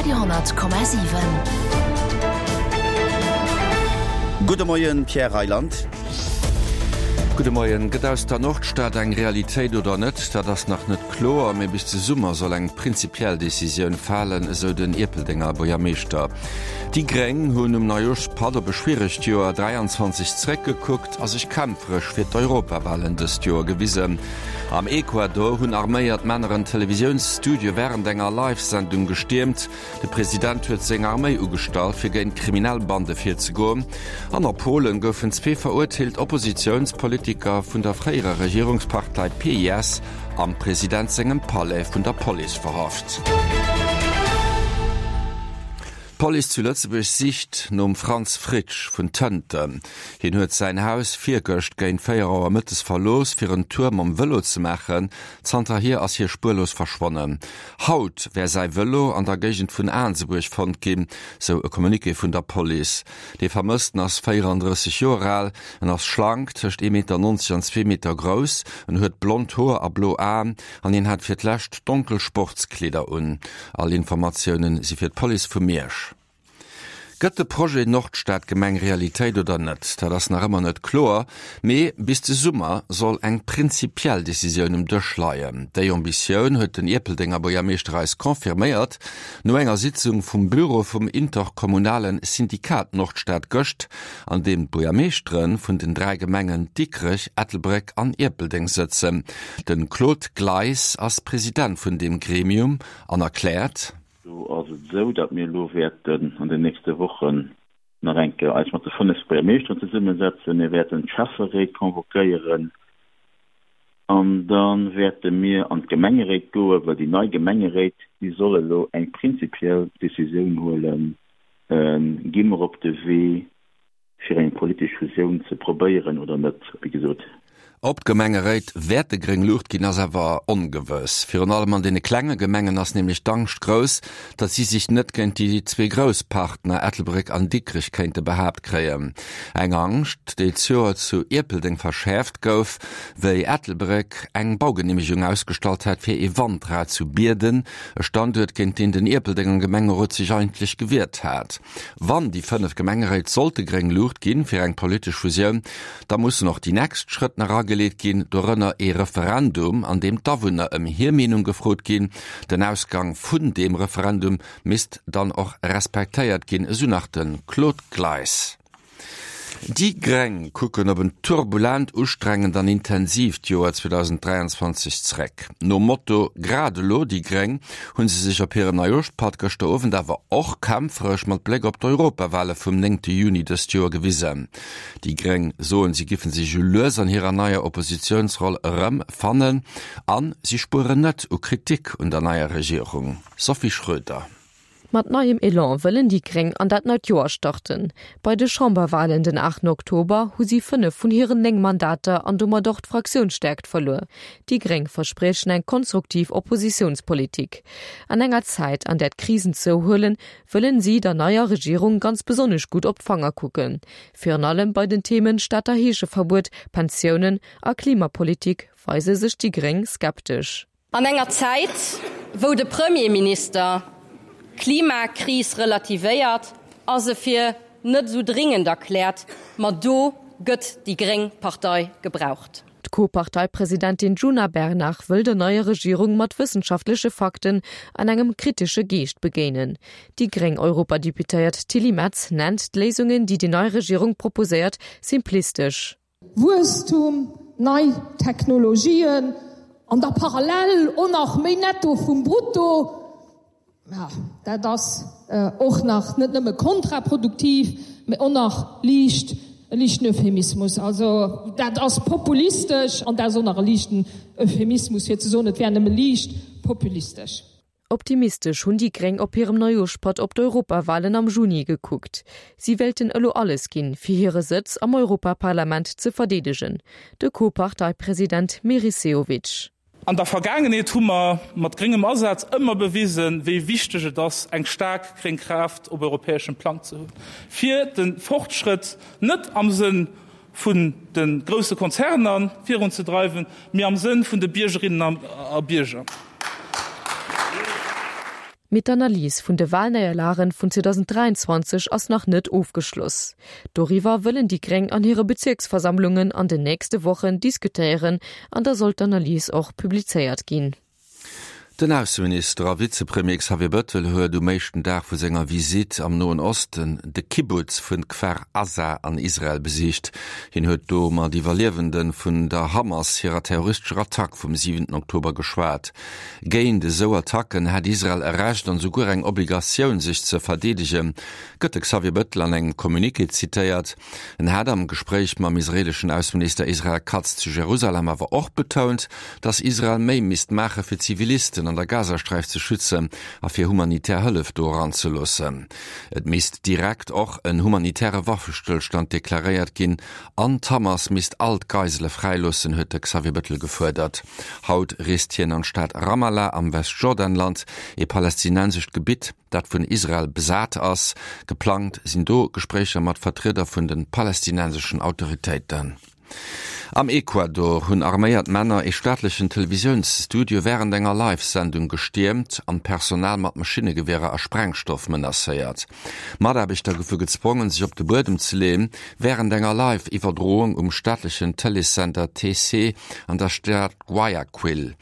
Radio 10,7. Gudde Moien, Pierre Reyland. Gudde Moien. Gëtt aus der Nordstad eng Realitéit oder net? Dat ass nach net kloer, mee bis de Summer soll eng prinzipiell Decisioun falen, esou den Ierpeldenger Buergermeeschter. Déi Gréng hunn um Neijooschpatt op e schwieregt Joer 23 zeréckgekuckt a sech kämpferesch fir d'Europawalen dëst Joer gewisen. Am Ecuador hunn arméiert Männer en Televisiounsstudio wärend enger Live-Sendung gestiermt. De President huet seng Arméi ugestallt, fir géint kriminell Bande virzegoen. An a Polen goufen zwee verurteelt Oppositiounspolitiker vun der fréierer Regierungspartei PiS am President sengem Palais vun der Police verhaft. D'Police zu Lëtzebuerg sicht nom Franz Fritsch vun Tënten. Hien huet säin Haus virgëscht géint 4 Auer mëttes verlooss, fir en Tour mam Vëlo ze maachen. Zanterhier ass hie spuerlos verschwonnen. Haut wär säi Vëlo an der Géigend vun Aansebuerg fonnt ginn, sou e Communiqué vun der Police. Dee Vermëssten ass 34 Joer al, en ass schlank, tëscht 1,90 Meter an zwee Meter grouss, en huet blond Hoer a blo Aen an hien hat fir d'lescht donkel Sportskleeder un. All Informatiounen si fir d'Police vu Miersch. Gëtt de Projet Nordstadgemeng Realitéit oder net? Dat ass nach ëmmer net kloer, mee bis de Summer soll eng prinzipiell Decisioun um Dësch leien. Déi Ambitioun huet den Ierpeldenger Buergermeeschter eis confirméiert no enger Sitzung vum Büro vum interkommunale Syndikat Nordstad gëscht, an deem d'Buergermeeschtere vun den 3 Gemengen Dikrech, Ettelbréck an Ierpeldeng sëtzen. De Claude Gleis ass President vun deem Gremium an erkläert. Do ass et esou, datt mir elo wäerten an den nächste Wochen nach eng Kéier eis mat de 5 Buergermeeschteren zesummesetzen. Mir wäerten d'Schäfferéit convoquéieren an da wäerte mir an d'Gemengeréit goen, well déi nei Gemengeréit, déi soll elo eng prinzipiell Decisioun huelen, Gi mer op de Wee fir eng politesch Fusioun ze probéieren oder net, wéi gesot. Ob d'Gemengeréit wäerte gréng Luucht ginn, ass awer ongewëss. Virun allem an deene klenge Gemengen ass nämlech d'Angscht grouss, datt si sech net géint déi zwee grouss Partner Ettelbréck an Dikrech kéinte behaapt kréien. Eng Angscht, déi d'Joer zu Ierpeldeng verschäerft gouf, wéi Ettelbréck eng Baugeneemegung ausgestallt hat fir ee Wandrad zu Bierden, e Standuert, géint deen den Ierpeldenger Gemengerot sech eigentlech gewiert hat. Wann déi 5 Gemengeréit sollte gréng Luucht ginn fir eng politesch Fusioun, da mussen och déi nächst Schrëtt nach ageleet ginn, dorënner ee Referendum, an deem d'Awunner ëm hir Meenung gefrot ginn. Den Ausgang vun deem Referendum misst dann och respektéiert ginn, esou nach de Claude Gleis. Déi Gréng kucken op en turbulent, ustrengend an intensiivt Joer 2023 zeréck. Nom Motto Grad elo déi Gréng hu se sech op hirem Neijooschpatt gëschter Owend awer och kämpferesch mat Bléck op d'Europawale vum néngte Juni dëst Joer gewisen. Déi Gréng soen, si giffen sech esou lues an hirer neier Oppositiounsroll erëm fannen an si spueren net u Kritik un der neier Regierung. Sophie Schröder. Mat neiem Elan wëllen déi Gréng an dat neit Joer starten. Bei de Chamberwalen den 8 Oktober hu si 5 vun hiren 9 Mandater an domat och d'Fraktiounsstäerkt verluer. Déi Gréng verspriechen eng konstruktiv Oppositiounspolitik. An enger Zäit, an där d'Krisen zouhuelen, wëllen si der neier Regierung ganz besonnesch gutt op d'Fanger kucken. Virun allem bei den Themen Stater Heescheverbuet, Pensiounen a Klimapolitik weise sech déi Gréng skeptesch. An enger Zäit, wou de Premierminister d'Klimakris relativéiert a se fir net esou dringend erkläert, ma do gëtt déi gréng Partei gebraucht. D'Co-Parteipresidentin Djuna Bernard wëll der neier Regierung mat wëssenschaftleche Fakten an engem kritesche Geescht begéinen. Déi gréng Europadeputéiert Tilly Metz nennt d'Léisungen, déi déi nei Regierung proposéiert, simplistesch. Wuesstum, nei Technologien an da parallel och nach méi Netto vum Brutto, ja, dat ass och nach net nëmme kontraproduktiv, mä och nach liicht e liichten Euphemismus. Also dat ass populistesch an dat ass och nach e liichten Euphemismus, fir ze soen, et wär nëmme liicht populistesch. Optimistesch hunn déi Gréng op hirem Neujooschpatt op d'Europawalen am Juni gekuckt. Si wéilten elo alles ginn, fir hire Sëtz am Europaparlament ze verdeedegen. De Co-Parteipresident Meris Sehovic. An der Vergaangenheet hu mer mat gréngem Asaz ëmmer bewisen, wéi wichteg et ass, eng staark gréng Kraaft op europäeschem Plang ze hunn, fir de Fortschrëtt net am Sënn vun de grousse Konzerner virunzedreiwen, mee am Sënn vun de Biergerinnen a Bierger. Mee d'Analys vun de Walnéierlagen vun 2023 ass nach net ofgeschloss. Doriwwer wëllen déi Gréng an hire Bezierksversammlungen an den nächste Wochen diskutéieren an da soll d'Analys och publizéiert ginn. Den Ausseminister a Vizepremier Xavier Bëttel huet um éischten Dag vu senger Visitt am Noen Osten de Kibbutz vun Kfar Aza an Israel besicht. Hien huet do mat Iwwerliewende vun der Hamas hirer terroristescher Attack vum siwenten Oktober geschwat. Géint esou Attacken hätt Israel e Recht an esouguer eng Obligatioun, sech ze verdeedegen, gëtt de Xavier Bëttel an engem Communiqué zitéiert. En hat am Gespréich mam israeeleschen Ausseminister Israel Katz zu Jerusalem awer och betount, datt Israel méi misst maache fir Zivilisten an der Gazasträif ze schützen a fir humanitär Hëllef do eranzeloossen. Et misst direkt och en humanitäre Waffestëllstand deklaréiert ginn an d'Hamas misst all d'Geisele fräiloossen, huet de Xavier Bettel gefuerdert. Haut reest hien an d'Stad Ramallah am Westjordanland, ee palästinensescht Gebitt, dat vun Israel besat ass. Geplangt sinn do Gespréicher mat Vertrieder vun de palästinenseschen Autoritéiten. Am Ecuador hunn arméiert Männer ee staatlechen Televisiounsstudio wärend enger Live-Sendung gestiermt an d'Personal mat Maschinnegewierer a Sprengstoff menacéiert. Mataarbechter goufe gezwongen, sech op de Buedem ze leeën, wärend enger Live-Iwwerdroung um staatlechen Tëleessender TC an der Stad Guayaquil.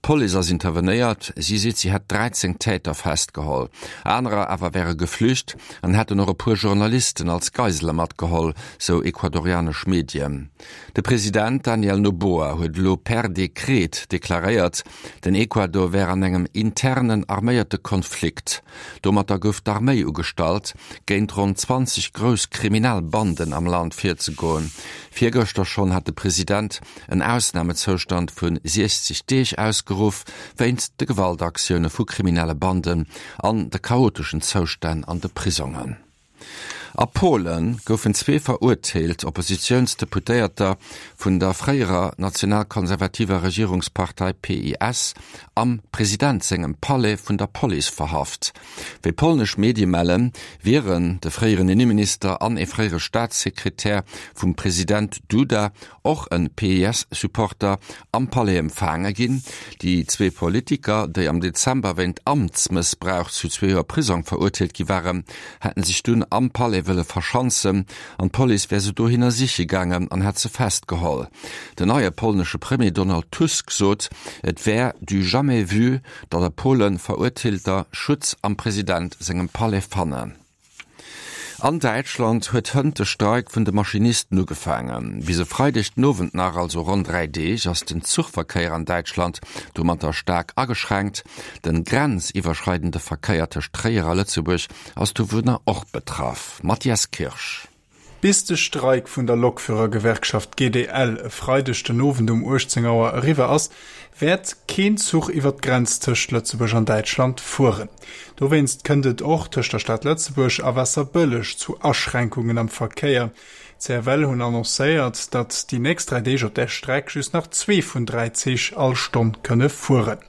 D'Police ass intervenéiert, si seet, si hätt 13 Täter festgeholl. Anerer awer wäre geflücht an hätten och e puer Journalisten als Geisele matgeholl, sou ecuadorianesch Medien. De President Daniel Noboa huet elo per Dekret deklaréiert, den Ecuador wär an engem internen arméierte Konflikt. Domatter gouf d'Arméi ugestallt, géint ronn 20 grouss kriminell Banden am Land virzegoen. Virgëschter schonn hat de President en Ausnamezoustand vu 60 Deeg ausgeruff, wéinst de Gewaltaktioune vu kriminelle Banden an de chaoteschen Zoustänn an de Prisongen. A Polen goufen zwee verurteelt Oppositiounsdeputéierter vun der fréierer nationalkonservativer Regierungspartei PiS am President sengem Palais vun der Police verhaft. Wéi polnesch Medie mellen, wieren de fréieren Inneminister an ee fréiere Staatssekretär vum President Duda och en PiS-Supporter, am Palais empfaange ginn. Déi zwee Politiker, déi am Dezember wéint Amtsmëssbrauch zu zwee Joer Prisong verurteelt gi waren, hätten sech dunn am Palais wëlle verschanzen an d'Police wär se dohinner siche gaangen an hätt se festgeholl. Den neie polnesche Premier Donald Tusk sot, et wär du jamais vu, datt a Polen Verurteelter Schutz am President sengem Palais fannen. An Däitschland huet hënt de Streik vun de Maschinisten ugefaangen. Bis e Freideg den Owend nach, also ronn 3 Deeg, ass den Zuchverkéier an Däitschland domatter staark ageschränkt. Den grenziwwerschreidende Verkéier tëscht Tréier a Lëtzebuerg ass dovunner och betraff. Mathias Kirsch. Bis de Streik vun der Lokführergewerkschaft GDL e Freideg den Owend um 18 Auer eriwwer ass, wäert keen Zuch iwwer d'Grenz tëscht Lëtzebuerg an Däitschland fueren. Dowéinst kënnt et och tëscht der Stad Lëtzebuerg a Waasserbëlleg zu Aschränkungen am Verkéier. D'CFL hunn annoncéiert, datt déi nächst 3 Deeg op där Streck just nach zwee vun 3 Zich all Stonn kënne fueren.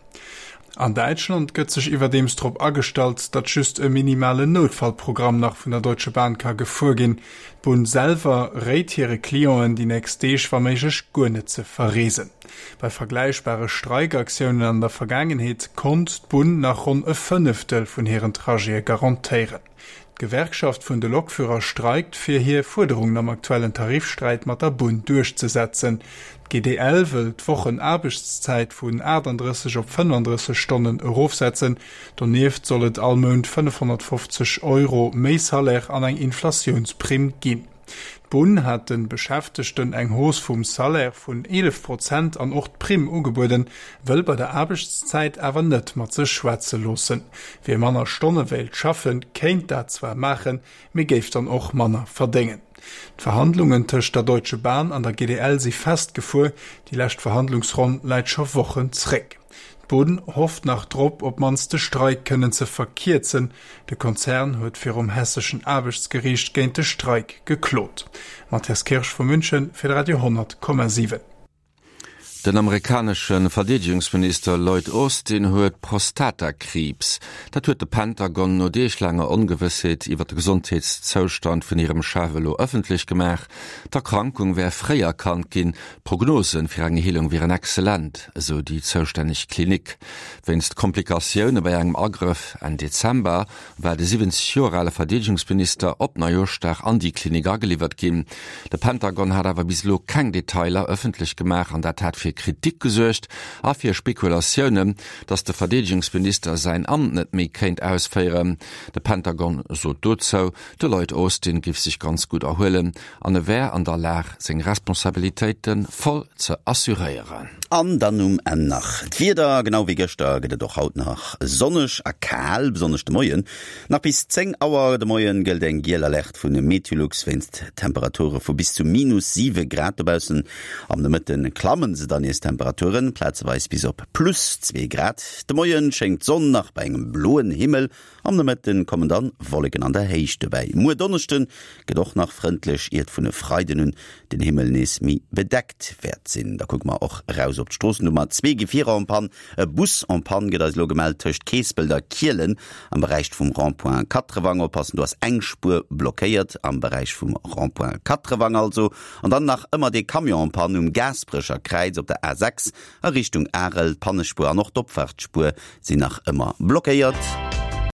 An Däitschland gëtt sech iwwerdeems drop agestallt, datt just e minimalen Noutfallprogramm nach vun der Deutsche Bahn ka gefuer ginn. D'Bunn selwer réit hire Clienten, déi nächst Deeg wa méiglech guer net ze verreesen. Bei vergläichbare Streikaktiounen an der Vergaangenheet konnt d'Bunn nach ronn e Fënneftel vun hiren Trajete garantéieren. D'Gewerkschaft vun de Lokführer streikt, fir hir Fuerderungen am aktuellen Tarifsträit mat der Bunn duerchzesetzen. D'GDL wëll d'Wochenaarbechtszäit vun 38 op 35 Stonnen erofsetzen. Donieft soll et all Mount 550 Euro méi Salaire an eng Inflatiounsprimm ginn. D'Bunn hat de Beschäftegten eng Hausse vum Salaire vun 11 Prozent an och d'Primm ugebueden, wëll bei der Aarbechtszäit awer net mat sech schwätze loossen. Wie manner Stonne wéilt schaffen, kéint dat zwar maachen, mee géif dann och manner verdéngen. D'Verhandlungen tëscht der Deutsche Bahn an der GDL si festgefuer, déi lescht Verhandlungsronn läit scho Wochen zréck. D'Bunn hofft nach drop, op d'mannst de Streik kënnen ze verkierzen. De Konzern huet virum hesseschen Aarbechtsgeriicht géint de Streik geklot. Matthias Kirsch vu München fir de Radio 10,7. Den amerikanesche Verdeedegungsminister Lloyd Austin huet Prostatakriibs. Dat huet de Pentagon no deeglaanger Ongewëssheet iwwer de Gesondheetszoustand vun hirem Chef elo ëffentlech gemaach. D'Erkrankung wär fréi erkannt ginn, d'Prognose fir eng Heelung wieren excellent, esou déi zoustänneg Klinik. Wéinst Komplikatioune bei engem Agrëff Enn Dezember war de 70 Joer ale Verdeedegungsminister op Neijooschdag an déi Klinik ageliwwert ginn. De Pentagon hat awer bis elo keng Detailer ëffentlech gemaach an dat hat fir Kritik gesuergt a fir Spekulatiounen, datt de Verdeedegungsminister säin Amt net méi kéint ausféieren. De Pentagon sot dozou, de Lloyd Austin géif sech ganz gutt erhuelen an e wär an der Lag seng Responsabilitéite voll ze assuréieren. An dann um Enn nach d'Wieder, Genau wéi gëschter gëtt et och haut nach sonneg a kal, besonnesch de Moien. Nach bis 10 Auer de Moien gëllt eng giel Alerte vu Meteolux wéinst Temperature vu bis zu minus 7 Grad dobaussen. Am Nomëtte klamme se dann nees d'Temperaturen, plazeweis bis op plus 2 Grad. De Moie schéngt d'Sonn nach bei engem bloen Himmel, Am Nomëtten kommen dann Wolleken an der Héicht dobäi. Muer Donneschden gëtt och nach frëndlech, iert vun e Freiden un den Himmel nees méi bedeckt wäert sinn. Da kucke mer och eraus op d'Stroossen. Do hu mer zwee Gefierer en panne. E Bus en panne gëtt eis elo gemellt tëscht Keespelt a Kielen am Beräich vum Rond-point Katrewang. Oppassen, do ass eng Spuer blockéiert am Beräich vum Rond-point Katrewang also. An dann nach ëmmer dee Camion en panne um Gaasperecher Kräiz op der A6 a Richtung Arel. D'Pannespuer an och d'Opfaartsspuer sinn nach ëmmer blockéiert.